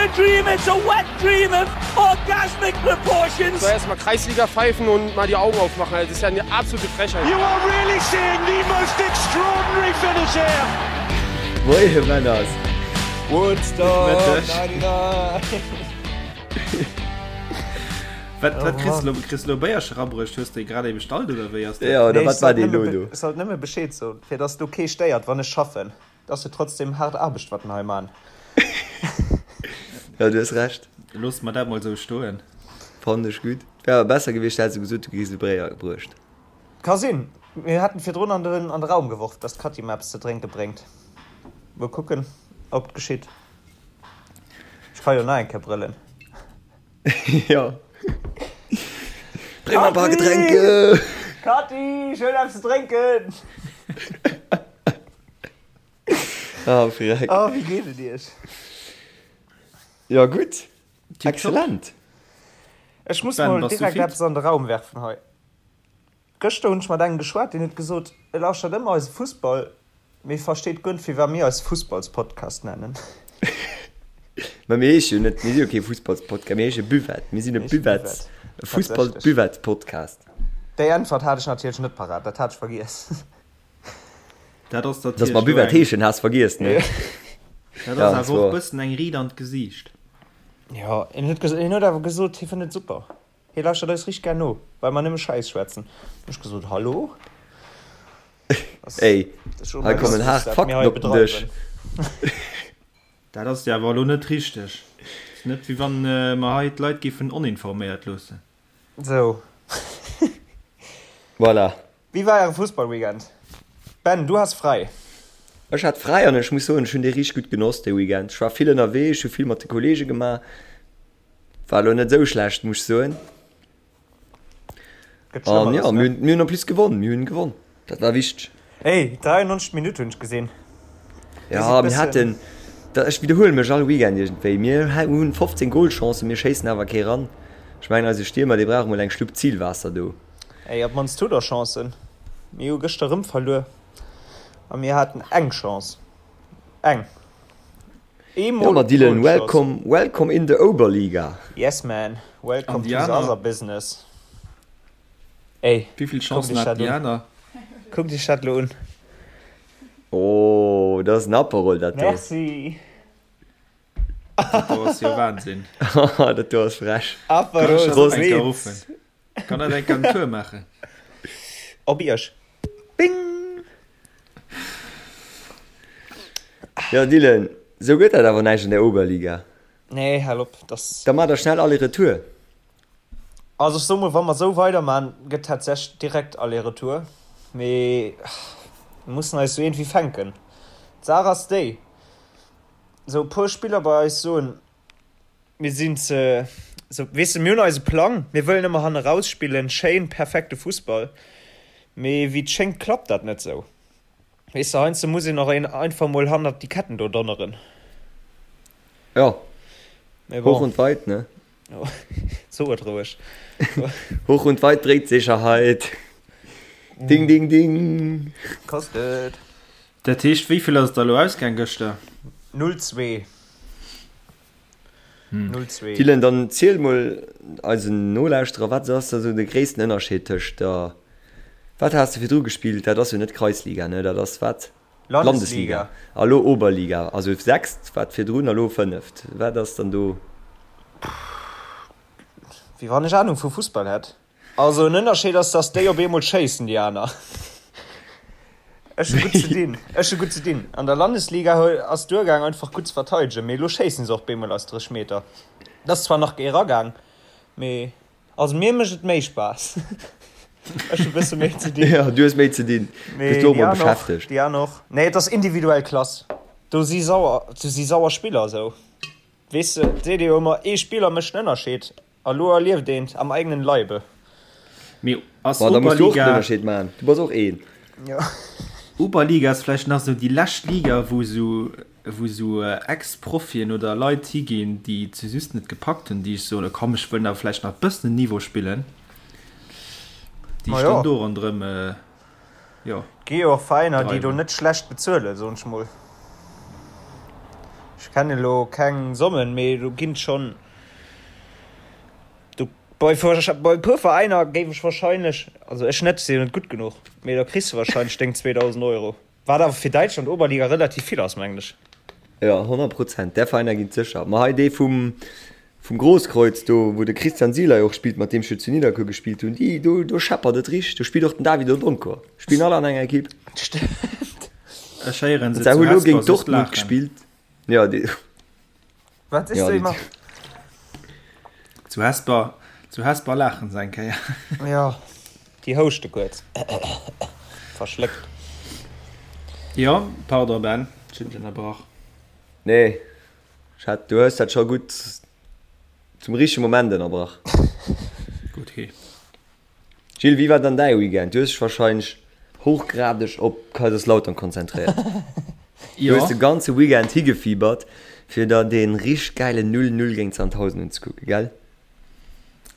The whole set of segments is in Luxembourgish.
a dream, it's a wet dream of orgasmic proportions. Soll erstmal Kreisliga pfeifen und mal die Augen aufmachen. Das ist ja eine absolute Frechheit. You are really seeing the most extraordinary finish here. Moie Männers! Woodstock 99! Wat, wat kriss du lo, kriss du lo Béierche rabruecht? Hues de grad ee bestallt oder wéi ass dat? Ja, oder wat war dee lo do? Ech sollt nëmme Bescheed soen, fir dass do kee stéiert, wann ech schaffen. Et ass jo trotzdem haart Aarbecht, wat mer hei man. Ja, du hues Recht. Loosse mer dat mol sou stoen. Fannen ech gutt. Wär awer besser gewiescht, häss du gesot, du kriss e Bréier bruecht. Ka sinn. Mir haten virdrun an den an de Raum geworf, dass d'Katty mer eppes ze drénke bréngt. Mol kucken, ob et geschitt. Ech ka jo nach eng Kéier brëllen. Jo. Bréng mer e paar Getränke! Katy, ech huelen eppes ze drénken! Ah, freck. Oh, wéi geet et iech? Jo, gutt. Excellent. Ech muss Ben, mol bass du direkt fit? eppes an de Raum werfen hei. Gëschter hunn ech mat engem geschwat, deen huet gesot, e lauschtert ëmmer eise Fussball, mee versteet guer net, firwat mir eis Fussballspodcast nennen. Mä mir heesche jo net, mir si jo kee Fussballspodcast, mir heesche Buvette. Mir sinn e Buvettes, e Fussball-Buvette-Podcast. Déi Äntwert hat ech natierlech net parat, dat hat ech vergiess. Dat ass Dass mer natierlech elo Buvette eng, heeschen, has vergiess, ne? dat Ja, ass dat awer och war. bëssen eng Ried an d'Gesiicht. Jo, en huet ges, en huet awer gesot, hie fënnt et super. Hie lauschtert eis richteg gär no, well mer nëmme Schäiss schwätzen. Hunn ech gesot, Hallo? Ey, hei kommen haart Fakten op den Dësch. Dat ass jo awer elo net richteg. Ass net wéi wann mer hei d'Leit géifen oninforméiert loossen. Sou. Voilà. Wéi war äre Fussballweekend? Ben, du has fräi. Ech hat fräi an ech muss soen, ech hunn dee richteg gutt genoss, dee Weekend. Ech war vill ënnerwee, ech hu vill mat de Kollege gemaach. War elo net esou schlecht, muss ech soen. Gëtt An Schlëmmeres, jo, ne? mir hunn, mir hunn en plus gewonn, mir hunn gewonn. Dat war wichteg. Ey, 93 Minutt hunn ech gesinn. Dir Ja, sidd mir bëssen. haten, da, ech widderhuele mech all Weekend iergendwéi, mir hunn 15 Golchancen, mir schéissen awer kee ran. Ech mengen, eise Stiermer, dee brauch emol eng Schlupp Zilwaasser do. Ey, op d'mannst hutt der Chancen. Mir hu gëschter erëm verluer a mir haten eng Chance. Eng. Jo, Eemol ma op Dylan, d'Goal geschoss. welcome, welcome in the Oberliga. Yes man, An welcome déi to the aner? other business. Ey, Wéi vill kuckt Chancen iech haten dat déi un. aner? Kuckt iech dat lo un. Oh, dat ass en Aperol, dat do. Merci. Dat do ass jo Wahnsinn. Dat do ass frech. Kann Aperol ech dat och eng Kéier Spritz. ruffen? Kann dat eng Kéier en Tour maachen? Op iech. Bing! Jo, Dylan, sou gëtt dat awer näischt an der Oberliga. Nee, hal op, dass. Da maacht der schnell Aller-Retour. Also ech soe mol, wa mer esou weiderman, gëtt tatsächlech direkt Aller-Retour. Mee mir mussen eis jo iergendwéi fänken. D'Saach ass déi, esou e puer Spiller bei eis soen, Mir sinn ze, sou, weess de, mir hunn eise Plang, mir wëllen ëmmer hanne raus spillen, schéin, perfekte Fussball, mee wéi et schéngt klappt dat net sou. Weess de, heiansdo muss een och een einfach mol hannert déi Ketten do donneren. Jo, Mee hoch bon. und weit, ne? So et roueg. Hoch und weit bringt Sicherheit. Ding, ding, ding. Kostet. Dat heescht, wéi vill ass et da elo ausgaang gëschter? 0, 2. 0, 2. Dylan, dann ziel mol eisen Nolauschterer, wat ass da sou de gréissten Ënnerscheed tëscht der, wat has de virdru gespillt, dat ass jo net Kreisliga, ne, dat ass wat? Landesliga. Landesliga. A lo Oberliga, also sechst wat virdrun a lo fënneft. Wat ass dann do? Wéi wann ech Ahnung vu Fussball hätt. Also en Ënnerscheed ass, dass déi op eemol schéissen, déi aner. Ech hu gutt ze dinn. Ech hu gutt ze dinn. An der Landesliga ass duergaang einfach gutt ze verteidegen, mee elo schéissen se och bemol aus 30 Meter. Et ass zwar nach eragaang, mee also mir mécht et méi Spaass. Ech hu bësse méi ze dinn. Jo, du hues méi ze dinn. Mee Bist du och déi mol aner och, beschäftegt. déi aner och. Nee, et ass individuell Klass. Do si sauer, do si sauer Spiller esou. Weess de, et seet ee jo ëmmer, ee Spiller mécht en Ënnerscheed. A lo erlieft eent am eigenen Leibe. Mee ass Bon, da muss du och den Oberliga. Ënnerscheed maachen. Du bass och een. Jo. Oberliga ass vläicht nach esou déi lescht Liga, wou esou, wou esou Ex-Profien oder Leit higinn, déi et just net gepackt hunn, déi soen, komm ech wëll awer vläicht nach e bëssen en Niveau spillen, déi Ma sech jo. dann do ronderëm, jo. Et gi jo och Veräiner, déi do dreiwen. net schlecht bezuelen, soen ech mol. Ech kennen elo keng Sommen, mee do ginn schonn, do bei bei e puer Veräiner géif ech wahrscheinlech, also ech net, si jo net gutt genuch, mee da kriss de wahrscheinlech deng 2.000 Euro, wat awer fir Däitschland Oberliga relativ vill ass, mengen ech. Jo, 100 Prozent, där Veräiner ginn et sécher. Ma hei dee vum vum Grosskreutz do, wou de Christian Sielay och spillt, mat deem ech jo zu Nidderkuer gespillt hunn, déi do do scheppert et richteg. Do spillt och den David Odonkor. Spillen all an enger Ekipp. Stimmt. Ech héieren se Se zu hu lo Hesper géint soss Dortmund laachen. gespillt. Jo, déi Wat sees jo, du déi Emma? Zu Hesper, zu Hesper laachen se eng Kéier. Jo, déi houschte kuerz. Verschléckt. Jo, pardon Ben, ech hunn dech ënnerbrach. Nee, ech hat, du hues dat scho gutt zum richtege Moment ënnerbrach. Gutt, he. Gilles, wéi war dann däi Weekend? Du hues dech wahrscheinlech hochgradeg op Kaiserslautern konzentréiert. Du hues de ganze Weekend higefiebert, fir der dee richteg gäilen 0, 0 géint Sandhausen unzekucken, gell?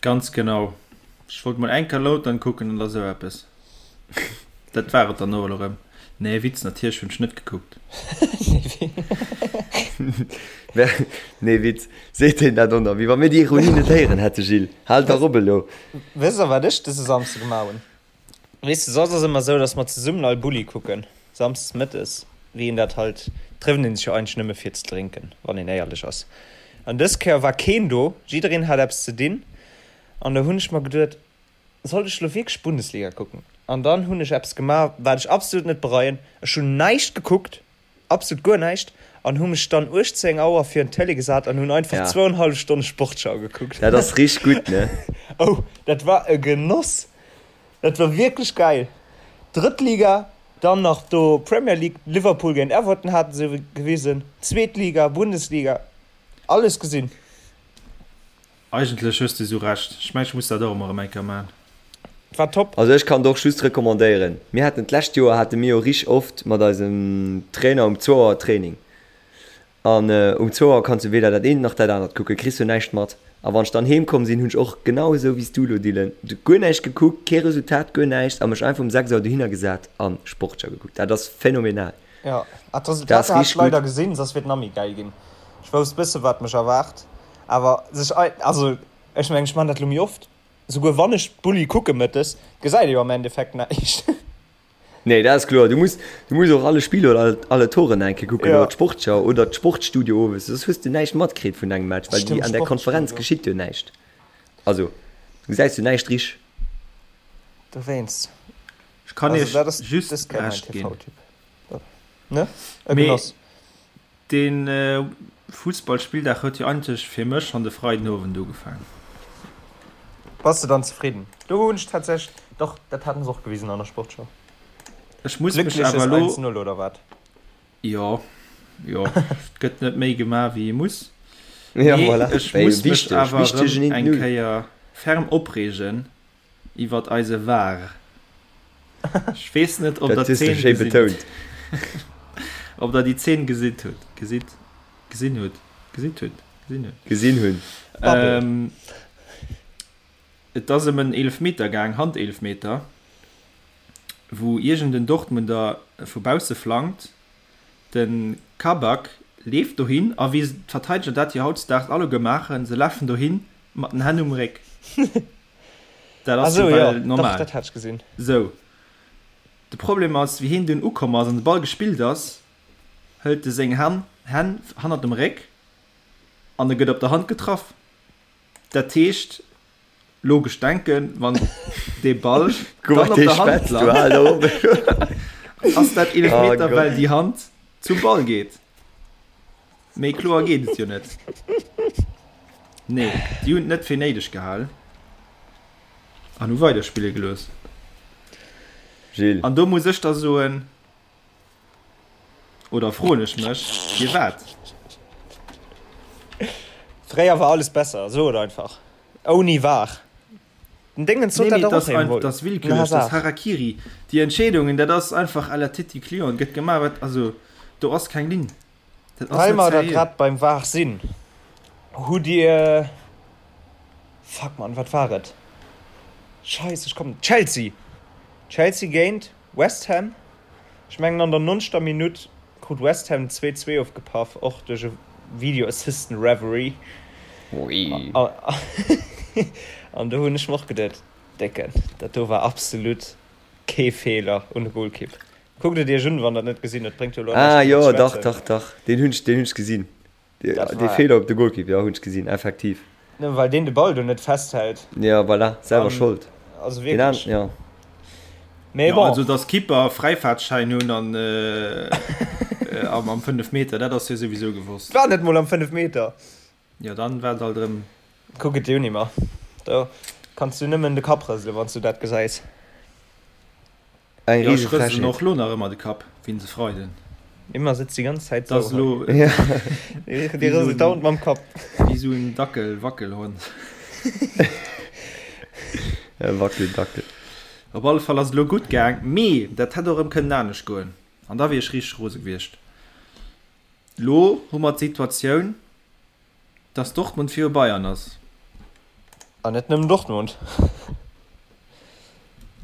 Ganz genau. Ech wollt mol eng Kéier Lautern kucken an da sou eppes. Dat war et dann och elo rëm. Nee, Witz, natierlech hunn ech net gekuckt. Nee, Witz, seet hien dat och nach, wéi wa mir déi Ironie net héieren hätte, Gilles. Hal dach op elo. Wësst der, wat ech dëse Samsde gemaach hunn? Weess de, soss ass ëmmer sou, datt mer zesummen all Bulli kucken, samsdes mëttes, wéi een dat halt, trëfft een sech jo eigentlech nëmme fir ze drénken, wann een éierlech ass. An dës Kéier war keen do, jiddereen hat eppes ze dinn, an da hunn ech mer geduet, Sollt ech lo wierklech Bundesliga kucken? An dann hunn ech eppes gemaach, wat ech absolut net bereien, Ech hunn näischt gekuckt, absolut guer näischt, an hu mech dann 18 Auer virun d'Télé gesat an hunn einfach Ja. zwouenhallef Stonne Sportschau gekuckt. Dat ass richteg gutt, ne? Oh, dat war e Genoss! Dat war wierklech gäil. Drëtt Liga, dann nach do Premier League, Liverpool géint Everton haten se gewisen, zweet Liga, Bundesliga, alles gesinn. Eigentlech hues de sou Recht. Ech mengen ech muss dat och emol erem eng Kéier maan. War top. Also ech kann et och just recommandéieren. Mir haten d'lescht Joer hate mir jo rich oft mat eisem Trainer um zwou Auer Training. An um zwou Auer kanns du weder dat eent nach dat anert kucken, kriss jo näischt mat. A wann ech dann heem komm sinn, hunn ech och genau esou wéi s du elo Dylan, guer näischt gekuckt, kee Resultat, guer näischt a mech einfach um 6 Auer dohinner gesat an Sportschau gekuckt. Dat ass phänomenal. Jo, ah Dat ass d'Resultater hat ech richteg gutt. leider gesinn, soss wier et nach méi gäil ginn. Ech wousst bësse wat mech erwaart. Awer sech ei, also ech mengen ech man dat lo méi oft, souguer wann ech d'Bulli kucke mëttes, gesäit ee jo am Endeffekt näischt. Nee, dat ass kloer. Du muss, du muss och alle Spiller oder alle, alle Toren eng Kéier kucken Ja. oder d'Sportschau oder d'Sportstudio owes, soss hues du näischt matkritt vun engem Match, well déi Stimmt, an der Konferenz Sportstudio. geschitt jo näischt. Also, du gesäis jo näischt richteg. Dowéinst. Ech kann Also iech dat ass just dës Kéier mäin Recht ginn. TV-Tipp. Ne? E Mee Genoss. De Fussballspilldag huet jo eigentlech fir mech schonn de Freidenowend ugefaang. Bass de dann zefridden? Do hunn ech tatsächlech, dach dat haten se och gewisen an der Sportschau. Ech muss mech Gléckleches awer elo. 1, 0 oder wat? Jo, jo, et gëtt net méi gemaach wéi ee muss. Ja, Mee voilà. ech Wéi muss mech wichteg, awer wichtegen erëm eng 1, 0. Kéier ferm opreegen iwwert eise VAR. Ech weess net, ob Dat der hues de d'Zeen schéi gesinn betount. Ob der déi Zeen gesitt hutt, gesitt, gesinn hutt, gesitt hutt, gesinn hutt. Gesinn hunn. Babbel. Ähm, et ass ëm en Eelefmeter gaang, Handeelfmeter, wou iergend en Dortmunder vu bausse flankt. De Kabak leeft dohin a wéi d'Verteideger dat jo hautdesdaags alleguer maachen, se lafen dohin mat den Hänn um Réck. Dat ass jo Ah sou, jo, well dach, normal. dat hat ech gesinn. Sou, de Problem ass, wéi hien dunn ukomm ass an de Ball gespillt ass, hëlt e seng Hänn Hänn hannert dem Réck an e gëtt op der Hand getraff. Dat heescht, logesch denken, wann dee Ball Guck dann mal, op dee der Hand schwätzt, du lant, hal der op. ass dat Oh Eelefmeter, Gott. well déi Hand zum Ball geet. Méi kloer geet et jo net. Nee, déi hunn et net fir néideg gehal an hu weiderspille gelooss. Gilles. An do muss ech da soen, oder froen ech mech, firwat? Fréier war alles besser, so et einfach. Ouni var. Den Dingens sot Nee, dat mee och et ass eemol. et ass Den willkürlech, et ass Hazard. Harakiri. Déi Entscheedungen, dat ass einfach à la Titi Client, gëtt gemaach wat, also do ass keng Linn. Dat ass Well net mer da seriö. grad beim var sinn, hutt Dir, fuck man, wat war et? Scheiss, ech kommen, Chelsea! Chelsea géint West Ham. Ech mengen an der nonzegter Minutt krut West Ham 2, 2 ofgepaff, och duerch e. Video Assistant Referee. Ui. An do hunn ech mer och geduet, Décken, dat do war absolut kee Feeler un de Golkipp. Kuckt et iech un, wann der et net gesinn hutt, bréngt jo elo Ah näischt jo, driwwer ze dach, schwätzen. dach, dach, deen hunn ech, deen hunn ech gesinn. Dat Dee war. Feeler op de Golkipp, jo, hunn ech gesinn, effektiv. Nëmme well deen de Ball do net festhält. Jo, voilà, selwer An, Schold. also Deen an, wierklech. jo. Mee Jo, bon. also dass Keeper Fräifaartschäin hunn an am 5 Meter, dat ass jo souwisou gewosst. War net mol am 5 Meter. Jo, dann war et alt erëm. Kuck et dir un, Imma. Do kanns du nëmmen de Kapp rëselen, wann s du dat gesäis. Eng Jo, ech riese rëselen Frechheet. och lo nach ëmmer de Kapp, wéi se Freiden. Imma sëtzt déi ganz Zäit Dat ass sou elo hei. Ja. Dee wéi sou rëselt en, dauernd mam Kapp. wéi sou en Dackel, Wackelhond. E Wackeldackel. Op alle Fall ass et elo gutt gaang, mee dat hätt och erëm kënnen anescht goen an da wier ech richteg rose gewiescht. Lo hu mer d'Situatioun, dass Dortmund viru Bayern ass. An net nëmmen Dortmund,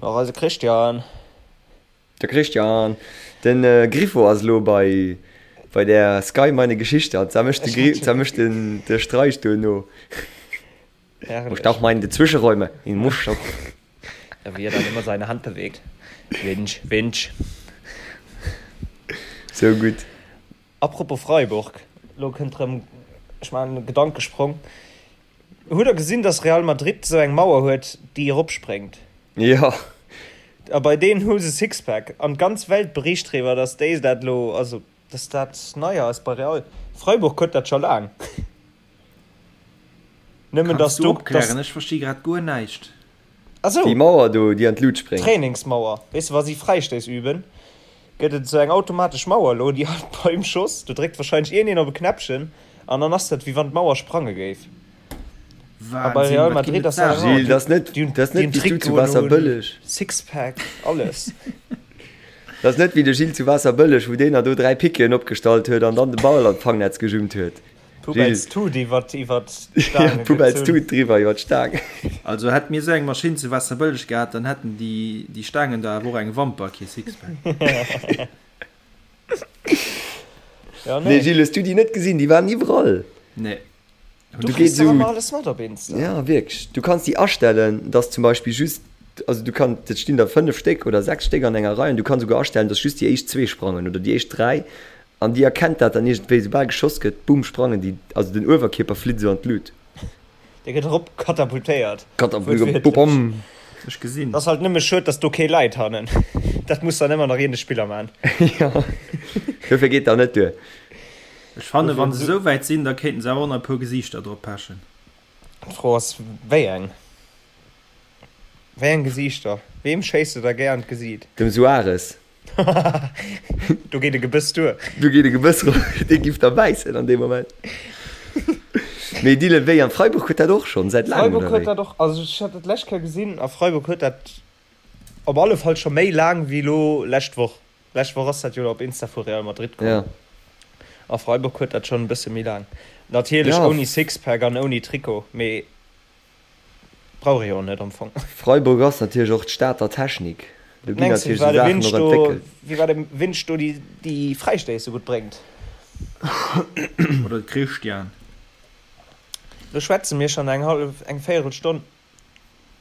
mä och eise Christian. De Christian, den Griffo ass elo bei bei der Sky meine Geschichte an zwar mécht de Gri zwar mécht den de Streich do no. Muss auch mal in die Zwischenräume in muss schon. Ja, wie er dann immer seine Hand bewegt. Winch, winch. So gutt. Apropos Freiburg, lo kënnt rëm, ech maachen e Gedankesprong. Hutt der gesinn, dass Real Madrid esou eng Mauer huet, déi eropspréngt? Jo. A bei deenen hu se Sixpack. An d'ganz Welt bericht driwwer, dass déi dat elo, also dass dat nei ass bei Real. Freiburg huet dat scho laang. Nëmmen Kanns dass du do, opklären? dass. Ech versti grad guer näischt. Ah sou. Déi Mauer do, déi an d'Lut spréngt. Trainingsmauer. Weess de, wa si Fräistéiss üben, gëtt et esou eng automatesch Mauer elo, déi halt beim Schoss, do dréckt wahrscheinlech iergendeen op e Knäppchen an dann ass dat, wéi wann d'Mauer sprange géif. A bei Wahnsinn, Real wat ginn Madrid et ass dat Saachen. awer, Gilles, dat ass net, déi hunn, dat ass déi net hunn wéi s du zu Trikoten un, Waasserbëlleg. Sixpack, alles. Dat ass net wéi de Gilles zu Waasserbëlleg, wou deen da do 3 Piqueten opgestallt huet an dann de Ball an d'Fangnetz gejummt huet. Poubelles Tut iwwer iwwer d'Staange Poubelles Tut driwwer iwwer d'Staang. Also hätt mir esou eng Maschinn zu Waasserbëlleg gehat, dann hätten déi déi Staangen da awer och eng Wamper, kee Sixpack. Ja, nee. Nee Gilles, hues du déi net gesinn? Déi waren iwwerall. Nee. Du kriss dach ëmmer alles mat op Insta. Ja wierklech. Du kanns déi astellen, dass zum Beispill just, also du kann, et stinn der 5 Stéck oder 6 Stéck an enger Rei an du kanns souguer astellen, dass just déi éischt zwee sprangen oder déi éischt 3 An déi erkennt dat dann iergendwéi, soubal geschoss gëtt, boom, sprangen déi, also den Uewerkierper flitt esou an d'Lut. Dee gëtt erop katapultéiert. Katapult, boom. Ech gesinn. Ass halt nëmme schued, dass do kee läit hannen. Dat muss dann ëmmer nach een de Spiller man. Jo, dofir geet dat net duer. Ech fannen, wann se esou wäit sinn, da kéinten se awer och nach e puer Gesiichter drop pechen. D'Fro ass, wéi eng? Wéi eng Gesiichter? Weem schéiss de da gär an d'Gesiit? Dem Suarez. Do geet e Gebëss duer. Do geet e Gebëss ro, dee giff da bäissen an deem Moment. Mee Dylan, wéi an Freiburg huet dat och schonn säit laangem, Freiburg oder huet wéi? dat och, also ech hat dat d'lescht Kéier gesinn a Freiburg huet dat op alle Fall scho méi laang wéi elo lescht Woch. Lescht Woch ass dat jo op Insta vu Real Madrid komm. Ja. A Freiburg huet dat schonn e bësse méi laang. Natierlech Ja. ouni Sixpack an ouni Trikot, mee Brauch ee jo och net am Fong. Freiburg ass natierlech och d'Stad der Technik. Do ginn Mengs du, natierlech wéi esou war de Saachen Winch och do, entwéckelt. wéi war de Winch do déi déi Fräistéiss sou gutt bréngt? Oder de Christian. Lo schwätze mir schonn eng hallef, eng véierel Stonn.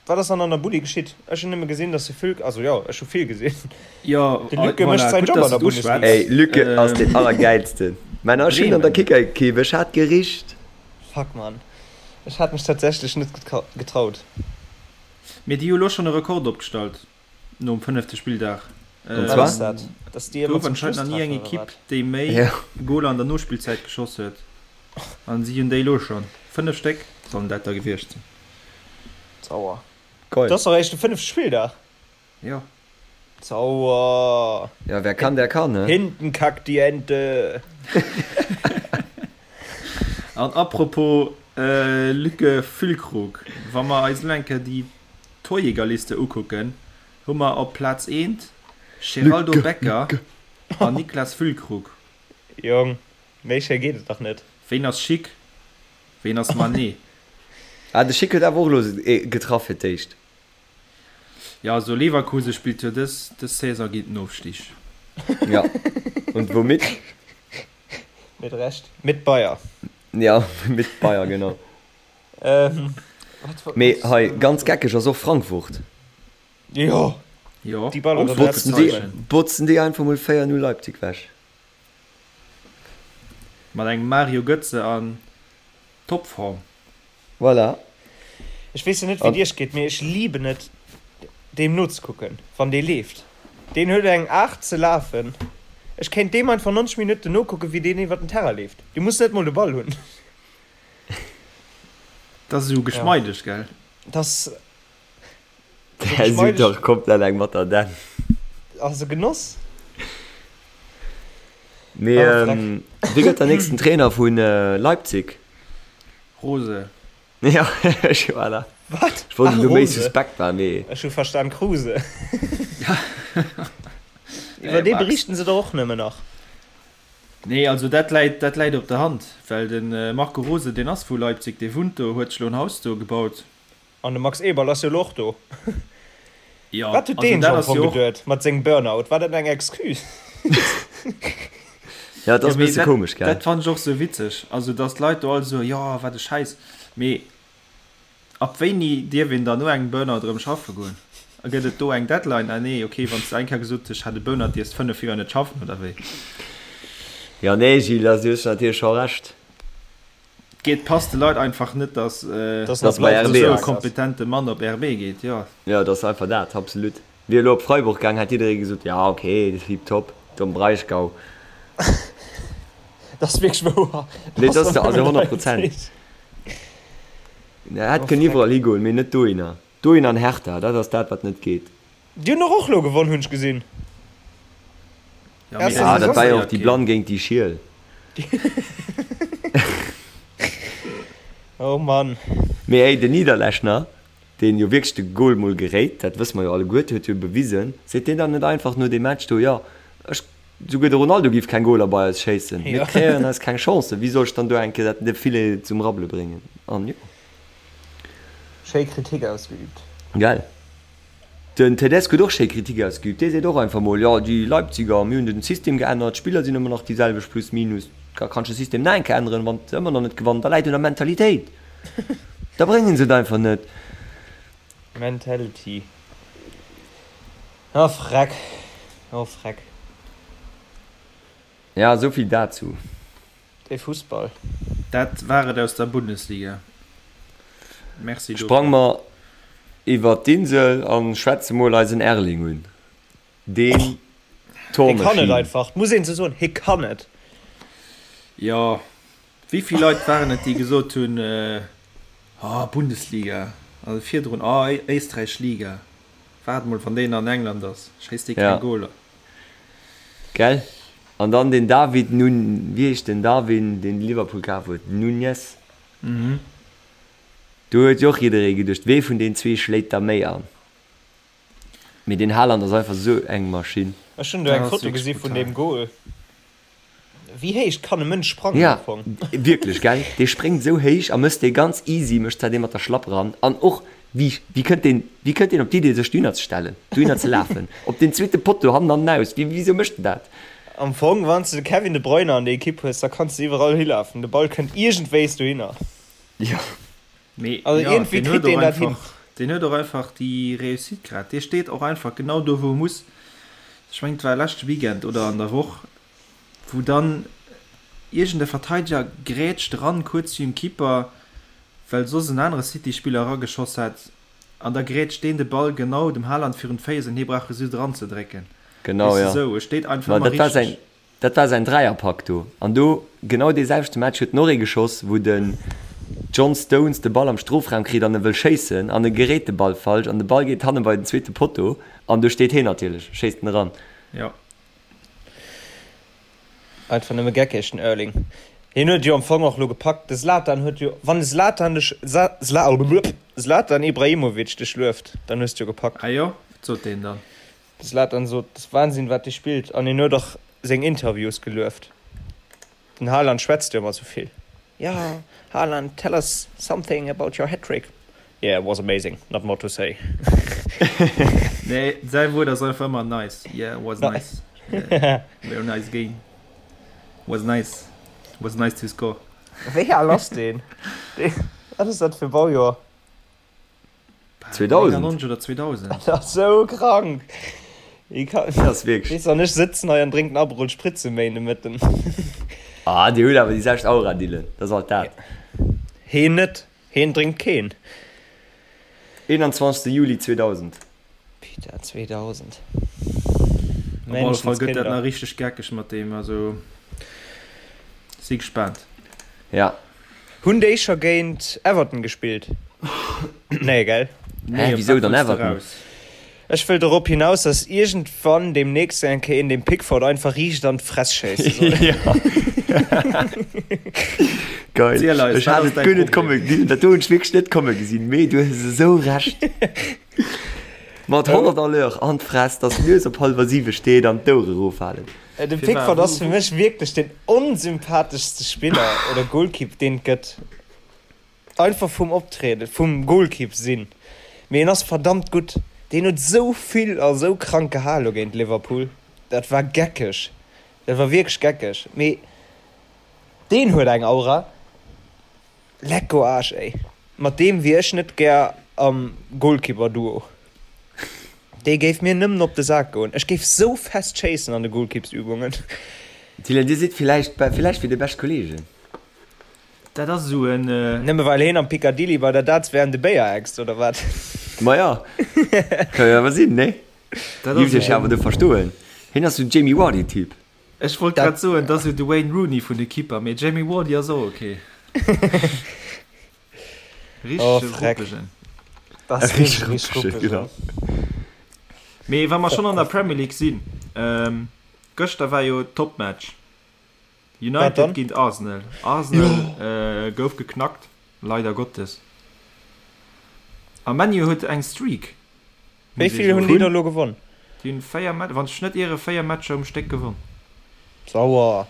Wat ass dann an der Bulli geschitt? Ech hunn nëmme gesinn, dass de Füllk, also jo, ech hu vill gesinn. Jo, De Lücke voilà, mécht säin gutt, Job dass an der du et Bundesliga. uschwätz. Ey, Lücke ass deen allergäilsten. Männer, ech hunn an der Bremen. Kickerekipp, ech hat gericht. Fuck, Mann. Ech hat mech tatsächlech net getraut. Mee déi hu lo schonn e Rekord opgestallt nom fënnefte Spilldag. Und Wat zwar? ass dat? Dass déi ëmmer Gouf zum anscheinend Schluss nach ni eng treffen, oder Ekipp, wat? déi méi Ja. Goler an der Nospillzäit geschoss huet. An si hunn déi elo schonn. 5 Stéck sollen dat da gewiescht sinn. Sauer. Geil. Dat ass doch eréischt de fënnefte Spilldag. Jo. Sauer. Ja, wer kann, der kann, ne? Hinten kackt die Ente. An apropos Lücke Füllkrug, wa mer eis elo eng Kéier déi Torjägerliste ukucken, hu mer op Plaz eent Sheraldo Lücke, Becker Lücke. an Niklas Füllkrug. Jong, méi schéi geet et dach net. Ween ass Schick? Ween ass Mané? Ah, de Schick huet awer och elo getraff fir d'éischt. Jo, also Leverkusen spillt jo dës dës Saison géint den Ofstig. Ja, und womit? Mit Recht. Mit Bayer. Ja, mit Bayer, genau. Mee hei, ganz geckeg ass och Frankfurt. Jo, Jo, déi ballern och Botzen déi, botzen déi einfach mol 4, 0 Leipzig wech. Mat engem Mario Götze an Topform. Voilà. Ech weess jo net wéi et iech geet, mee ech liben et deem nozekucken wann dee leeft. Deen huet eng Aart ze lafen, ech kéint deem einfach 90 Minutten nokucken wéi deen iwwer den Terrain leeft. Dee muss net mol de Ball hunn. Dat ass esou geschmeideg, gell? Dat ass esou Där sot geschmeideg. dach komplett eng mat der Dänn. Ass e Genoss. Mee wie gëtt der nächsten Trainer vu Leipzig? Rose. Ja, ech, voilà. Wat? Ech wollt Ach, elo méi Rose. suspekt war, mee. Ech hu verstan Kruse. Iwwer dee berichten se der och nëmmen nach. Nee, also dat läit, dat läit op der Hand, well de Marco Rose, deen ass vu Leipzig, dee wunnt do, huet sech elo en Haus do gebaut. An de Max Eberl ass jo elo och do. Jo, Wat huet also deen dat am ass Fong jo och. geduet mat sengem Burnout? War dat eng Excuse? Ja, et Jo, ass e mee bësse dat, komesch, gell? dat fannen ech och sou witzeg. Also, dass d'Leit do all soen, jo, wat e Schäiss. Mee ab wéini dierf een dann no engem Burnout erëm schaffe goen? A gëtt et do eng Deadline? Ah nee, okay, wann s de eng Kéier gesot hues, ech hat e Burnout, dierfs 5 Joer net schaffen, oder wéi? Jo, nee, Gilles, also du hues natierlech scho Recht. Geet, passt de Leit einfach net, dass Dass Dass bei RB esou e ass. kompetente Mann op RB geet, jo. Jo, et ass einfach dat, absolut. Wier elo op Freiburg gaang, hätt jidderee gesot, ja ok, tiptop, do am Breisgau. Dat ass wierklech wouer. Nee, dat ass also 100 Prozent. Hätt kënnen iwwerall higoen, mee net dohinner. Dohin an Hertha, dat ass dat, wat net geet. Déi hunn och elo gewonn, hunn ech gesinn. Ja, mee Ah, dat war jo interesséiert och déi keen. Blann géint déi Schiel. Oh Mann. Mee hey, den Niederlechner, deen jo wierklech de Goal mol geréit, dat wësse mer jo alleguerte, huet jo bewisen, seet deen dann net einfach no deem Match do, jo, ech, souguer de Ronaldo giff keng Goaler bei eis schéissen, mir kreéieren eis keng Chancen, wéi soll ech dann do eng Kéier dat de Filet zum Rabbele bréngen? An jo. Schéi Kritik ausgeübt. Gell? Den Tedesco huet och schéi Kritik ausgeübt. Dee seet och einfach mol, jo déi Leipziger, mir hunn den System geännert, d'Spiller sinn ëmmer nach déi selwecht plus minus. Da kanns de System nach eng Kéier änneren, wann se ëmmer nach net gewannen, da läit un der Mentalitéit. Da bréngen se et einfach net. Mentality. Oh freck, oh freck. Ja, esou vill dazou. Dee Fussball. Dat war et aus der Bundesliga. Merci dofir. Sprang mer iwwert d'Insel an schwätze mol eisen Erling un. Deen Hie kann et Tormaschinn. einfach, muss een esou soen, hie kann et. Jo, wéi vill Leit waren et déi gesot hunn, oh Bundesliga, also virdrun, oh Éisträich Liga, waart mol wann deen an England ass, schéisst dee keng Goler. Gell? An dann den David Nun, wéi heescht den Darwin, deen Liverpool kaf huet? Nunez? Do huet jo och jidderee geduecht, wee vun den zwee schléit da méi an? Mee den Haaland ass einfach esou eng Maschinn. Ech hunn do eng Foto gesi vun deem Goal. Wéi héich kann e Mënsch sprangen Ja, am Fong? wierklech, gell? Dee spréngt esou héich a mësst dee ganz easy, mécht zwar dee mat der Schlapp eran. An och, wéi, wéi kënnt deen, wéi kënnt deen op d'Idee, sech dohinner ze stellen, dohinner ze lafen, op deen zweete Potto, hannen an den Aus? Wéi, wisou mécht en dat? Am Fong, wann s de de Kevin De Bruyne an der Ekipp hues, da kanns de iwwerall hilafen, de Ball kënnt iergendwéis dohinner. Jo. Mee Also jo, iergendwéi deen huet kritt deen och dat hin. einfach, deen huet och einfach déi Réussite grad. Dee steet och einfach genau do, wou e muss. Ech mengen, et war leschte Weekend oder an der Woch, wou dann iergend e Verteideger grätscht eran, kuerz virum Keeper, well soss en anere City-Spiller erageschoss hat, an da grätscht deen de Ball genau dem Haaland virun d'Féiss an hie brauch e just eranzedrécken. Genau, Weess de, jo. esou, e steet einfach Ma ëmmer dat war säin, richteg. Dat war säin Dräierpak do. An do, genau dee selwechte Match, huet en och ee geschoss, wou den John Stones de Ball am Strofraum kritt an e wëll schéissen an e geréit de Ball falsch an de Ball geet hanne bei den zweete Potto an do steet heen natierlech, schéisst en eran. Jo. Einfach nëmme geckeg, den Erling. Hien huet et jo am Fong och lo gepackt. De Zlatan huet jo, wann de Zlatan dech, Zlatan Ibrahimovic dech lueft, dann hues de jo gepackt. Ah jo? Wat sot deen dann? De Zlatan sot, Et ass Wahnsinn, wat dee spillt. An hien huet och seng Interviews gelueft. Den Haaland schwätzt jo ëmmer sou vill. Jo, Haaland, tell us something about your hat-trick. Yeah, it was amazing, not more to say. Nee, säi Wuert ass einfach ëmmer nice. Yeah, was nice. Yeah, very nice game. Was nice. Was nice to score. Wéi al ass deen? Wat ass dat fir Baujoer? 2000. 99 oder 2000. Dat ass sou krank. Dat ass wierklech. Weess an ech sëtzen hei an drénken Aperol Spritz um Méindemëtten. Ah, dir hutt awer déi selwecht Aura, Dylan. Dat ass alt dat. Heen net. Heen drénkt keen. 21. Juli 2000. Peter 2000. Op alle Fall gëtt dat nach richteg geckeg mat deem, also si gespaant. Ja. Hunn déi scho géint Everton gespillt? Nee, gell? Nee, wisou dann Everton? Ech wëll dorop hinaus, dass iergendwann deemnächst eng Kéier een dem Pickford einfach riicht an d'Fress schéisse soll. Geil. Ziel eis, Ech wat hat ass et däi guer net Problem? komme gesinn. Dat do hunn ech wierklech net komme gesinn, mee du hues esou Recht. Mat 100 à l'heure an d'Fress, dass d'Nues op hallwer siwe steet an d'Ouere eroffalen. De Pickford ass fir mech wierklech den onsympatheschste Spiller oder Goalkeep, deen et gëtt. Einfach vum Optrieden, vum Goalkeep sinn. Mee en ass verdammt gutt. Deen huet esou vill a sou krank gehal lo géint Liverpool. Dat war geckeg. Dat war wierklech geckeg. Mee deen huet eng Aura. Lecko Aarsch ey. Mat deem wier ech net gär am Goalkeeper-Duo. Dee géif mir nëmmen op de Sak goen. Ech géif sou fest schéissen an de Goalkeepsübungen. Dylan, dir sidd villäicht, villäicht wier dir bescht Kollegen. Dat ass esou en. Nëmme well heen am Piccadilly bei der Darts-WM de Béier äxt, oder wat? Maja, ka jo awer sinn, nee? Dat Giff ass ech awer do verstoen. Heen ass sou Jamie Vardy-Typ. Ech wollt grad soen, dat ass jo de Wayne Rooney vun de Keeper, mee Jamie Vardy ass och ok. Oh, Richtege freck. Ruppegen. Dat ass Richteg wierklech ruppegen, ruppegen. genau. Mee wa mer schonn an der Premier League sinn, gëschter war jo Topmatch. Wat United dann? géint Arsenal. Arsenal gouf geknackt, leider Gottes. A ManU huet eng Streak, Wéi muss ee vill hunn déi soen. da lo gewonn? Déi hunn 4 Match, wann ech net iere, 4 Matcher um Stéck gewonn. Sauer.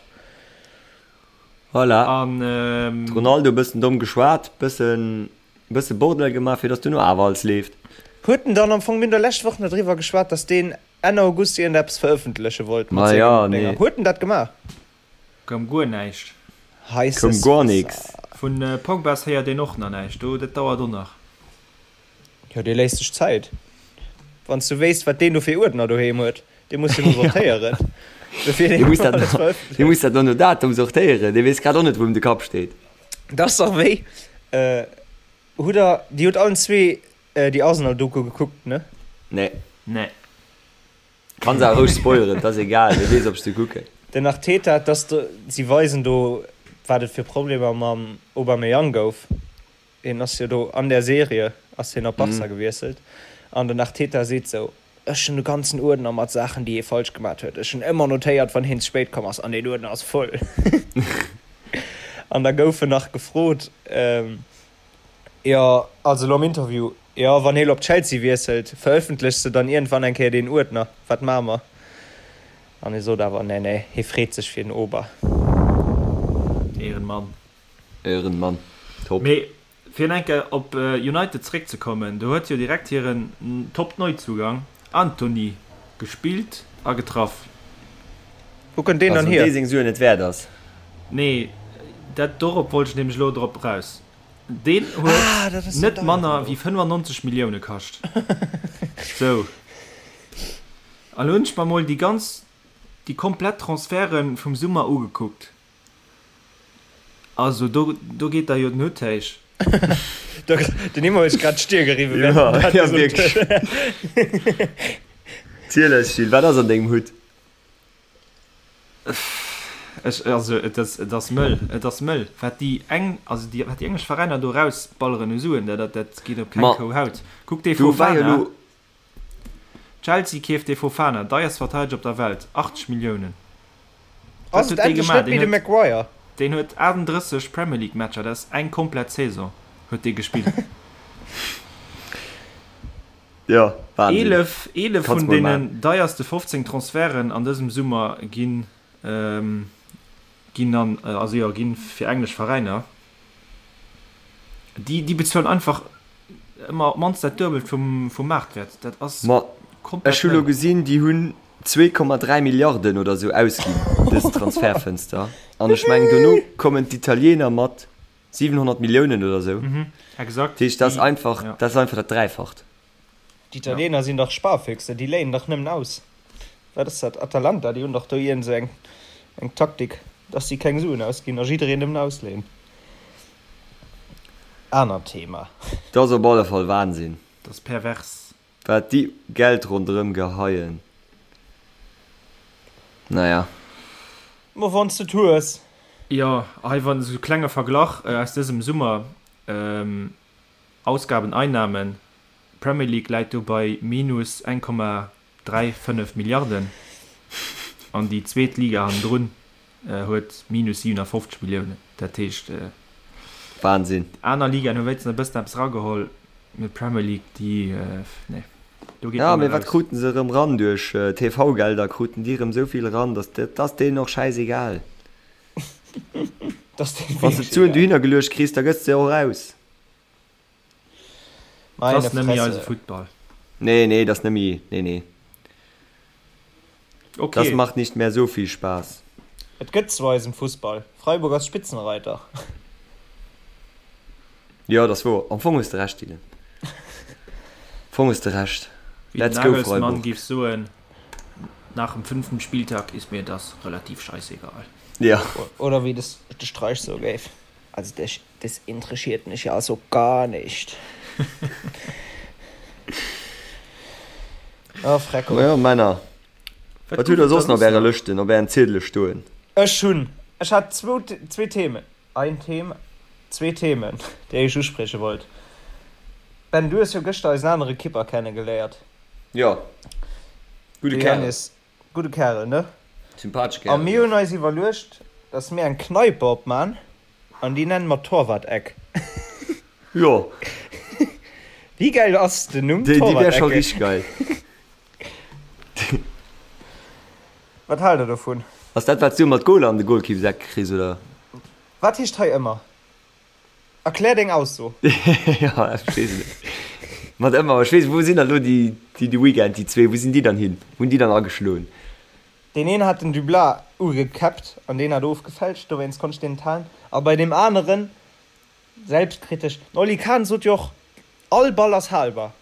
Voilà. An. Ronaldo bëssen domm geschwat, bëssen bësse Bordell gemaach, fir dass duerno awer alles leeft. Huet en dann am Fong, mir hunn der lescht Woch nach driwwer geschwat, dass deen Enn August iergendeppes verëffentleche wollt mat Ma ja, sengen Dénger. nee. Huet en dat gemaach? Koum guer näischt. Koum Heisses guer nix. Vun Pogbas héiert een och nach näischt, do dat dauert och nach. Jo, dee léisst sech Zäit. Wann s du wéisst, wat deen do fir Uerdner doheem huet, dee muss jo mol sortéieren, bevir Dee deen muss dat alles dee verëffentlecht. muss dat no Datum sortéieren, dee weess grad och net, wou em de Kapp steet. Dat ass dach wéi, hutt der, dir hutt allen zwee Déi Arsenal-Doku gekuckt, ne? Nee. Nee. Kanns awer roueg spoileren, et ass egal, wie weess ob ech se kucken. Den Arteta, dass do, si weisen do wat et fir Problemer mam Aubameyang gouf. Hien ass jo do an der Serie ass hien op Barca gewiesselt an den Arteta seet sou, ech hunn e ganzen Uerdner mat Saachen déi hie falsch gemat huet, ech hunn ëmmer notéiert wann hien ze spéit komm ass an deen Uerdner ass voll. An da gouf en nach gefrot, Jo, also elo am Interview, jo, wann hie lo op Chelsea wiesselt, verëffentlechs de dann iergendwann eng Kéier deen Uerdner? Wat maache mer? An hie sot awer, nee, nee, hie freet sech fir den Ober. Ehrenmann. Ehrenmann, top. Mee fir eng Kéier op United zeréckzekommen, do huet jo direkt hiren Top-Neuzugang Antony gespillt a getraff. Wou kënnt deen Also dann wann hier? dee seng Suen net wäert ass. Nee, dat dorop wollt ech nämlech elo drop eraus. Deen Ah, huet dat ass den net deieren manner elo. wéi 95 Millioune kascht. Sou. An elo hunn ech mer mol déi ganz, déi komplett Transferte vum Summer ugekuckt. Also do, do geet der jo den Hutt héich. Den Immo huet sech grad d'Stier geriwwen, während Ja, en dat ja gesot wierklech. huet. Ziel eis, Gilles, wat ass an dengem Hutt? Ech, also et ass, et ass mëll, et ass mëll, wat déi eng, also déi, wat déi englesch Veräiner do erausballeren u Suen, dat, dat, dat geet op keng Ma Kou Haut. Kuck dee do war jo Fofana, elo. Chelsea keeft dee Fofana, deierst Verteideger op der Welt, 80 Milliounen. Wat Ass et huet dee endlech gemaach? net méi Deen de huet, Maguire? deen huet 38 Premier League Matcher, dat ass eng komplett Saison huet dee gespillt. Jo, Wahnsinn. 11, 11 Kanns vun mol maan. deenen deierste 15 Transferten an dësem Summer ginn, ginn an, also jo, ginn fir englesch Veräiner. Déi, déi bezuelen einfach ëmmer op d'mannst dat Duebelt vum, vum Maartwäert. Dat ass Ma komplett ech hu lo mëll. gesinn, déi hunn. 2,3 Milliarden oder sou ausginn dës Transfertfënster. An ech mengen dono kommen d'Italiener mat 700 Milliounen oder sou. Exakt. Dat heescht, dat ass einfach, dat ass einfach dat Dräifacht. D'Italiener sinn dach Sparfüchse, déi léien dach nëmmen aus. Wat ass dat, Atalanta, déi hunn dach do iergend sou eng eng Taktik, dass si keng Suen ausginn a jiddereen nëmmen ausléien. Anert Thema. Dat ass op alle Fall Wahnsinn. Dat ass pervers. Wat déi Geld ronderëm geheien. Naja. Ma wann s de et hues. Jo, hei wann esou klenge Verglach aus dësem Summer, Ausgaben, Einnahmen, Premier League läit do bei minus 1,35 Milliarden an déi zweet Liga hannendrun huet minus 57 Milliounen. Dat heescht, Wahnsinn. Aner Ligaen hu wéinstens e bëssen eppes erageholl, mee d'Premier League, déi, nee, do geet Ja, mee wat kruten se erëm ran duerch TV-Gelder? Kruten déi erëm esou vill eran, datt dat ass deenen och schäisegal. Wann s de d'Suen dohinner geluecht kriss, da gëss de se och aus. Dat ass net méi eise Futtball. Nee, nee, dat ass net méi, nee, nee. Okay. Das macht nicht mehr so viel Spaß. Et gëtt zu eisem Fussball. Freiburg ass Spitzenreiter. Jo, dat ass wouer. Am Fong hues de Recht, Dylan. Am Fong hues de Recht. Wéi den Let's go Nagelsmann Freiburg. géif soen, Nach dem fünften Spieltag ist mir das relativ scheißegal. Ja. Oder wéi de Streich soe géif, Also das interessiert mich ja so gar nicht. Oh, Frecko. Majo, Männer. Wat hutt der soss nach op ärer Lëschten, op ären Ziedele stoen? Ech hunn, ech hat zwou, zwee Themen, ein Thema, zwee Themen, déi ech usprieche wollt. Ben, du hues jo gëschter eisen anere Kipper kennegeléiert. Jo. Gudde De Kerl. Jannis. Gudde Kerl, ne? Sympathesche A Kerl, mir jo. hunn eis iwwerluecht, dass mir eng Kneipe opman an déi nenne mer Torwart-Eck. Jo. Wéi gäil ass den Numm Déi, déi wär scho Torwart-Ecke? richteg geil. Wat haalt der dovun? Ass dat wat s du ëmmer d'Goler an de Golkippseck kriss, oder? Wat heescht hei ëmmer? Erklär deng Ausso. Jo, ech weess et net. Mat ëmmer, ech weess, wou sinn dann elo déi, déi de Weekend, déi zwee, wou sinn déi dann hin? Wou hunn déi dann ageschloen? Deen een hat den Dublas ugekäppt an deen hat ofgefälscht, dowéinst konnt ech deen net halen. A bei deem aneren, selbstkritesch, den Oli Kahn sot jo och, all Ball ass halbar.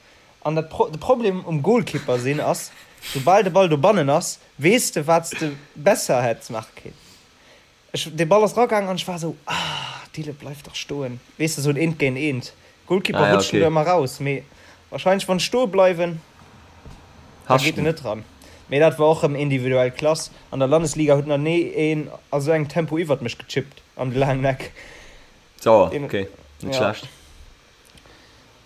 An dat, de Problem um Golkipper sinn ass, soubal de Ball dobannen ass, weess de wat s de besser hätts maache kéint. Ech, dee Ball ass ragaangen an ech war esou, ah, Dille, bleif dach stoen. Weess de, esou en Eent géint Eent. Goalkeeper Ah ja, rutschen okay. do ëmmer raus, mee wahrscheinlech wann ech stoe bleiwen, da geet en Haschten. net ran. Mee dat war och rëm individuell Klass. An der Landesliga huet nach ni een a sou engem Tempo iwwert mech gechippt an de laangen Eck. Sauer, Deen, okay, net ja. schlecht.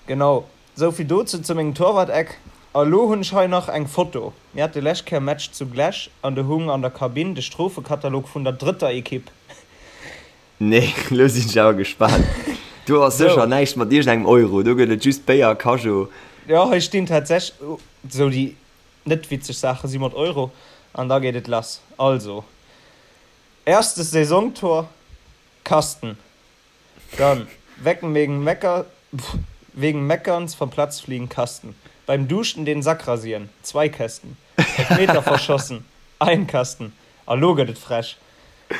Genau, souvill dozou zu mengem Torwart-Eck. A lo hunn ech hei nach eng Foto. Mir hate lescht Kéier Match zu Glesch an do hung an der Kabinn de Strofekatalog vun der drëtter Ekipp. Nee, lo sinn ech awer gespaant. Do ass sécher Sou. näischt mat iergendengem Euro, do gëtt et just Béier a Cajo. Jo, hei stinn tatsächlech sou déi net witzeg Saache si mat Euro an da geet et lass. Also, erstes Saisontor, Kasten. Dann, wecken wegen Mecker, wegen Meckerns vom Platz fliegen, Kasten. Beim Duschen den Sack rasieren, zwei Kästen. Elfmeter verschossen, ein Kasten. A lo gëtt et frech.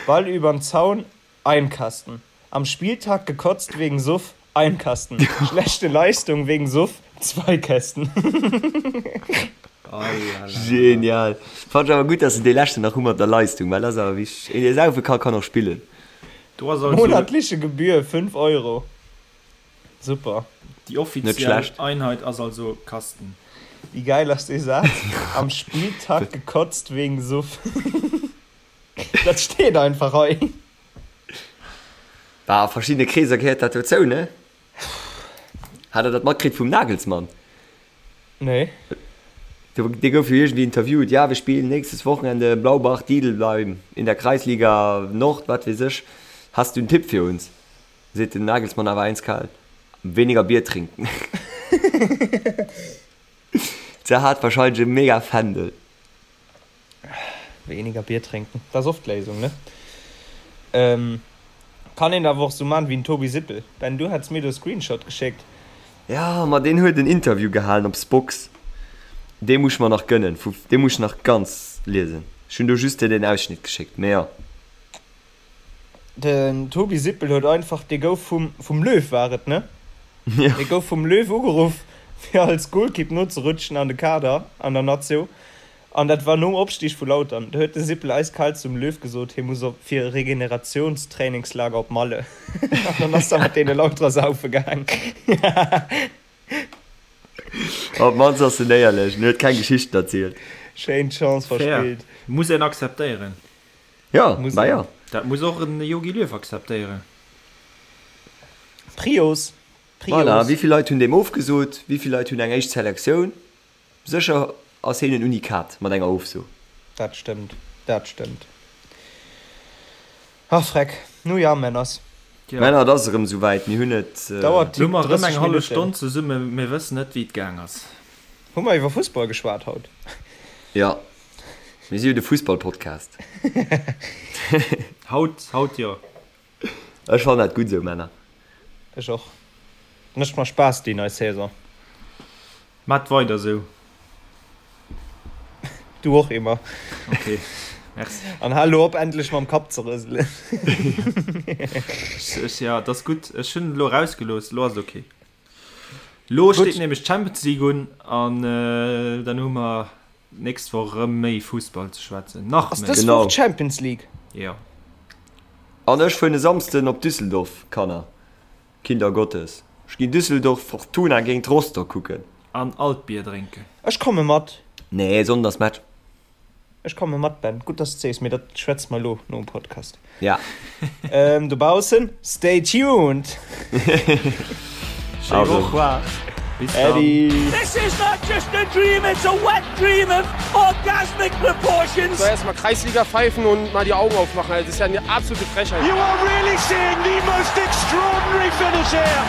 Ball übern Zaun, ein Kasten. Am Spieltag gekotzt wegen Suff, ein Kasten. Schlechte Leistung wegen Suff, zwei Kästen. Genial. Fand ech awer gutt, dass se dee leschten nach hu mat der Leistung, well dat ass awer wichteg. Een dee saufe ka, kann och spillen. Do ass also. Monatliche Gebühr 5 Euro. Super. Déi offiziell Einheit ass also Kasten. Wéi geil ass dee Saz? Am Spieltag gekotzt wegen Suff. Dat steet einfach hei. Bah, a verschiddene Kreeser gehéiert dat dozou, ne? Hat der dat matkritt vum Nagelsmann? Nee. Dee gouf jo iergendwéi interviewt, ja, wir spielen nächstes Wochenende Blaubach Didelheim in der Kreisliga Nord, wat weess ech, hast du einen Tipp für uns? Seet den Nagelsmann awer eiskal, Weniger Bier trinken. Se hat wahrscheinlech e mega Fändel. Weniger Bier trinken, dat ass oft d'Léisung, ne? Kann een awer och sou man wéi den Tobi Sippel. Ben, du hats mir do e Screenshot geschéckt. Jo, ma deen huet en Interview gehalen op Spox. Dee muss ech mer nach gënnen, vu dee muss ech nach ganz liesen. Ech hunn do just dir den Ausschnitt geschéckt, mee jo. Den Tobi Sippel huet einfach, dee gouf vum, vum Löw war et, ne? Jo. Dee gouf vum Löw ugeruff, fir als Golkipp nozerutschen an de Kader an der Nazio. An dat war nom Opstig vu Lautern. Do huet de Sippel eiskal zum Löw gesot, hie muss op fir e Regeneratiounstrainingslager op Malle. An dann ass er mat deene Lauterer saufe gaang. Op d'mannst ass en éierlech en huet keng Geschichten erzielt. Schéin Chance Fair. verspillt. Muss een akzeptéieren. Jo, Muss bah een. jo. Dat muss och en Jogi Löw akzeptéieren. Prios, Voilà, Prios. wéi vill Leit hunn deem ofgesot? Wéi vill Leit hunn eng éischt Selektioun? Sécher ass heen en Unikat mat enger Ofso. Dat stëmmt, dat stëmmt. Ach Freck, nu ja, Männers. Tja. Männer, et ass erëm esou wäit, mir hunn et. Dauert Lo hu mer erëm 30 eng hallef Minutten. Stonn zesummen, mir wëssen net wéi et gaang ass. Hu mer iwwer Fussball geschwat haut? Jo, mir si jo de Fussball-Podcast. Haut, haut jo. Ech fannen dat gutt esou, Männer. Ech och. Mécht mer Spaass déi nei Saison. Maat weider sou. Du och Emma. Ok, merci. An hal lo op endlech mam Kapp ze rëselen. Ech, ja, et ass gutt. Ech hunn et elo erausgelooss, elo ass et ok. Elo steet nämlech d'Champions League un an dann hu mer d'nächst Woch erëm méi Fussball ze schwätzen. Nach Ass méi. dës Genau. Woch d'Champions League? Jo. An ech fueren e Samsden op Düsseldorf, Kanner. Kinder Gottes, ech ginn Düsseldorf Fortuna géint Rostock kucken. An Altbier drénken. Ech komme mat. Nee, Sonnden ass Match. Ech komme mat, Ben. Gutt, dass de sees, mee dat schwätze mer elo nom Podcast. Ja. Dobaussen, stay tuned! Schéi Woch. Bis dann. Äddi! This is not just a dream, it's a wet dream of orgasmic proportions. So, erstmal Kreisliga pfeifen und mal die Augen aufmachen. Also, das ist ja eine absolute Frechheit. You are really seeing the most extraordinary finish here.